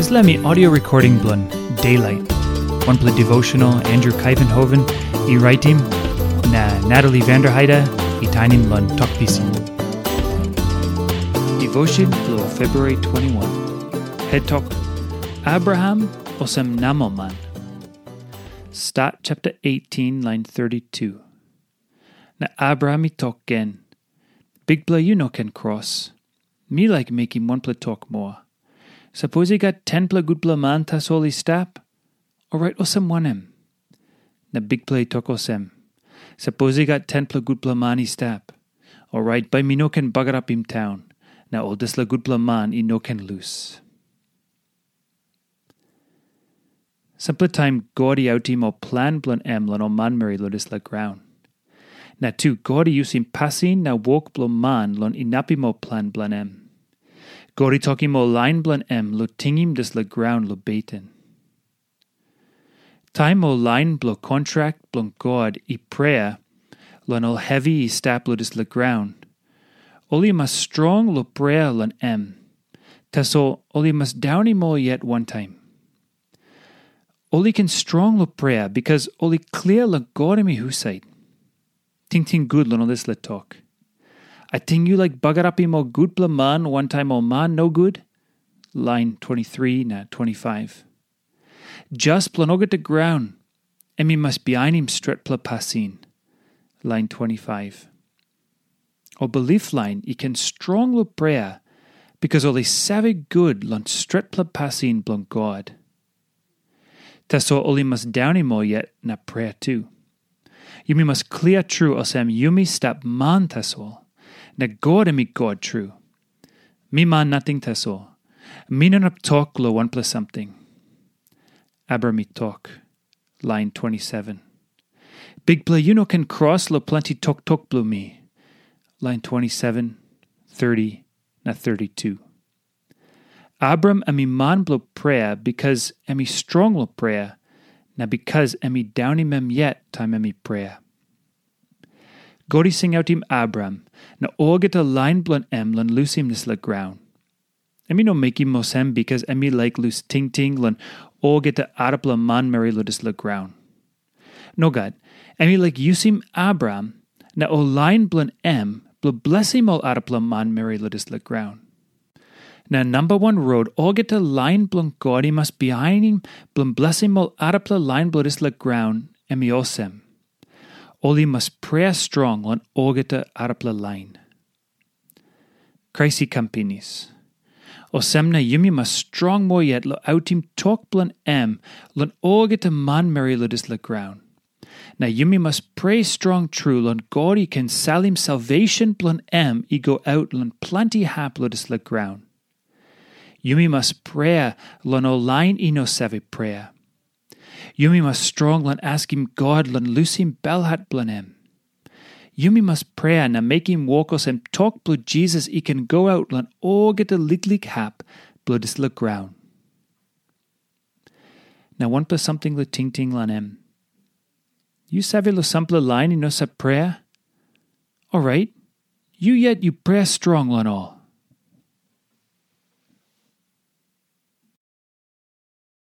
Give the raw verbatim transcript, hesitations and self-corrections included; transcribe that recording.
Dispela mi audio recording bilong Daylight, wanpela devotional Andrew Kaivenhoven i raitim, na Natalie Vanderheide i tainim long Tok Pisin. Devotion bilong February twenty-one. Head Tok, Abraham olsem namelman. Stat chapter eighteen, line thirty-two. Na Abraham i tok gen, "Bikpela, yu no ken kros. Mi laik mekim wanpela tok moa. Sapos i gat tenpela gutpela man tasol i stap, orait olsem wanem?" Na Bikpela i tok olsem, "Sapos i gat tenpela gutpela man i stap, orait bai mi no ken bagarapim taun, na ol dispela gutpela man i no ken lus." Sampela taim God i autim ol plan bilong em long ol manmeri long dispela graun. Na tu God i yusim pasin na wok bilong man long inapim ol plan bilong em. God i tokim ol lain bilong em long tingim dispela graun long beten. Taim ol lain bilong kontrak bilong God i prea long ol hevi i stap long dispela graun, ol i mas strong long prea long em. Tasol ol i mas daunim ol yet wantaim. Ol i ken strong long prea bikas ol i klia long God em i husat. Tingting gut long ol dispela tok. Ating yu laik bagarapim ol gutpela man wantaim ol man nogut? Lain twenty-three na twenty-five. Jas bilong olgeta graun, em i mas bihainim stretpela pasin. Lain twenty-five. Ol bilip lain i ken strong long prea, bikas ol i save gut long stretpela pasin bilong God. Tasol ol i mas daunim ol yet na prea tu. Yumi mas klia tru olsem yumi stap man tasol, na God em i God tru. Mi man nating tasol. Mi no inap tok long wanpela samting. Abraham i tok, lain twenty-seven. Bikpela, yu no ken kros long planti toktok bilong mi. Lain twenty-seven, thirty, na thirty-two. Abraham em i man bilong prea bikas em i strong long prea, na bikas em i daunim em yet taim em i prea. God i singautim Abraham na olgeta lain bilong em long lusim dispela graun. Em i no mekim olsem bikas em i laik lus tingting long olgeta arapela manmeri long dispela graun. Nogat, em i laik yusim Abraham na ol lain bilong em bilong blesim ol arapela manmeri long dispela graun. Na namba wan rot olgeta lain bilong God i mas bihainim bilong blesim ol arapela lain bilong dispela graun, em i olsem. Ol i mas prea strong long olgeta arapela lain. Krais i kam pinis. Olsem na yumi mas strong moa yet long autim tok bilong em long olgeta manmeri long dispela graun. Na yumi mas prea strong tru long God i ken salim salvation bilong em i go aut long planti hap long dispela graun. Yumi mas prea long ol lain i no save prea. Yumi mas strong long askim God long lusim belhat bilong em. Yumi mas prea na mekim wok olsem tok bilong Jisas i ken go aut long olgeta liklik hap bilong dispela graun. Na wanpela samting long tingting long em. Yu save long sampela lain i no save prea? Orait, yu yet yu prea strong long ol.